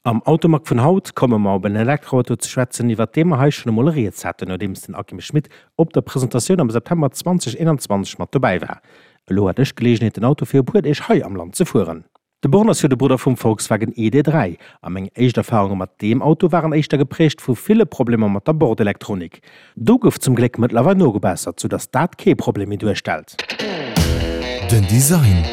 Am Automag vun haut komme mer op en Elektroauto ze schwätzen, iwwert dee mer hei schonn emol rieds haten, nodeems den Akim Schmit op der Presentatioun am September 2021 mat dobäi war. Elo hat ech d'Geleegenheet den Auto fir e puer Deeg hei am Land ze fueren. De Born ass jo de Brudder vum Volkswagen ID. 3 a meng éischt Erfarunge mat deem Auto waren éischter geprägt vu ville Problemer mat der Bordelektronik. Do gouf zum Gléck mëttlerweil nogebessert, sou dass dat kee Problem méi duerstellt. Den Design.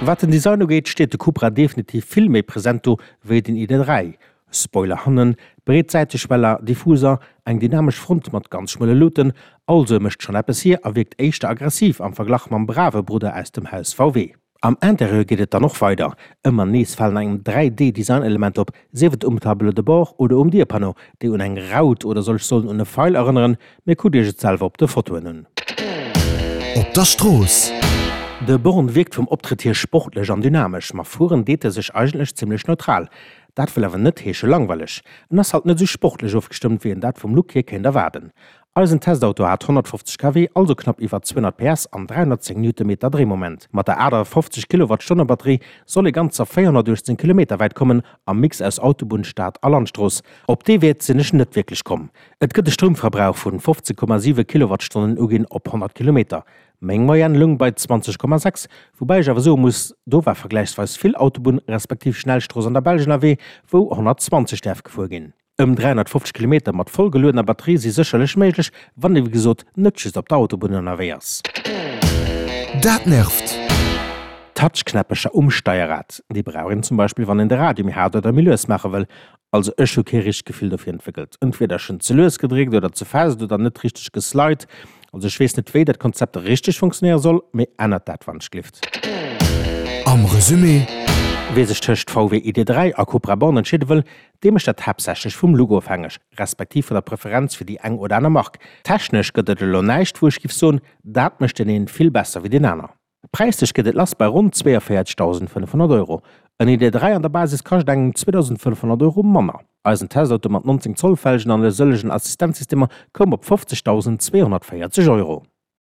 Wat den Design ugeet, steet de Cupra definitiv vill méi present do wéi den ID. 3. Spoiler hannen, breet Säiteschweller, Diffuser, eng dynamesch Front mat ganz schmuele Luuten, also e mécht schonn eppes hier a wierkt éischter aggressiv am Verglach mam brave Brudder aus dem Haus VW. Am Interieur geet et dann och weider. Ëmmer nees falen engem 3D-Design-Elementer op, sief et um Tableau de bord oder um Dierpanneau, déi un eng Raut oder soll ech soen un e Feil erënneren, mee kuckt iech et selwer op de Fotoen un. Op der Strooss. De Born wierkt vum Optrëtt hier sportlech an dynamesch, ma fueren deet e sech eigentlech zimmlech neutral. Dat wëll awer net heesche langweileg. En ass halt net esou sportlech ofgestëmmt, wéi een dat vum Look hier kéint erwaarden. Eisen Testauto hat 150 kW, also knapp iwwer 200 PS an 310 Newtonmeter Dréimoment. Mat der 58 Kilowattstonne Batterie soll ee ganzer 418 Kilometer wäit kommen, am Mix aus Autobunn, Stad a Landstrooss. Op dee Wäert sinn ech net wierklech komm. Et gëtt e Stroumverbrauch vun 15,7 Kilowattstonnen uginn op 100 Kilometer. Meng Moyenne loung bei 20,6, woubäi ech awer soe muss, do war vergläichsweis vill Autobunn respektiv Schnellstrooss an der Belsch ënnerwee, wou 120 däerf gefuer ginn. Ëm 350 Kilometer mat voll geluedener Batterie si sécherlech méiglech, wann ee wéi gesot net just op der Autobunn ënnerwee ass. Dat nervt! Touchknäppecher um Steierrad, déi brauch een zum Beispill wann een de Radio méi haart oder méi lues maache wëll. Also ech hu kee richtegt Gefill dofir entwéckelt. Entweder ech hunn ze lues gedréckt oder ze fest oder net richteg geslide. Also ech weess net wéi dat Konzept richteg funktionéiere soll, mee ännert dat wann ech glift. Am Resumé. Wee sech tëscht VW ID.3 a Cupra Born entscheede wëll, Dee mécht dat haaptsächlech vum Look ofhängeg, respektiv vun der Preferenz fir déi eng oder aner Mark. Technesch gëtt et elo näischt, wou ech giff soen, dat mécht deen een vill besser wéi deen aner. Präislech geet et lass bei ronn 42.500 Euro. En ID.3 an der Basis kascht engem 2.500 Euro manner. Eisen Testauto mat 19 Zoll Felgen an e sëllegen Assistenzsystemer koum op 50.240 Euro.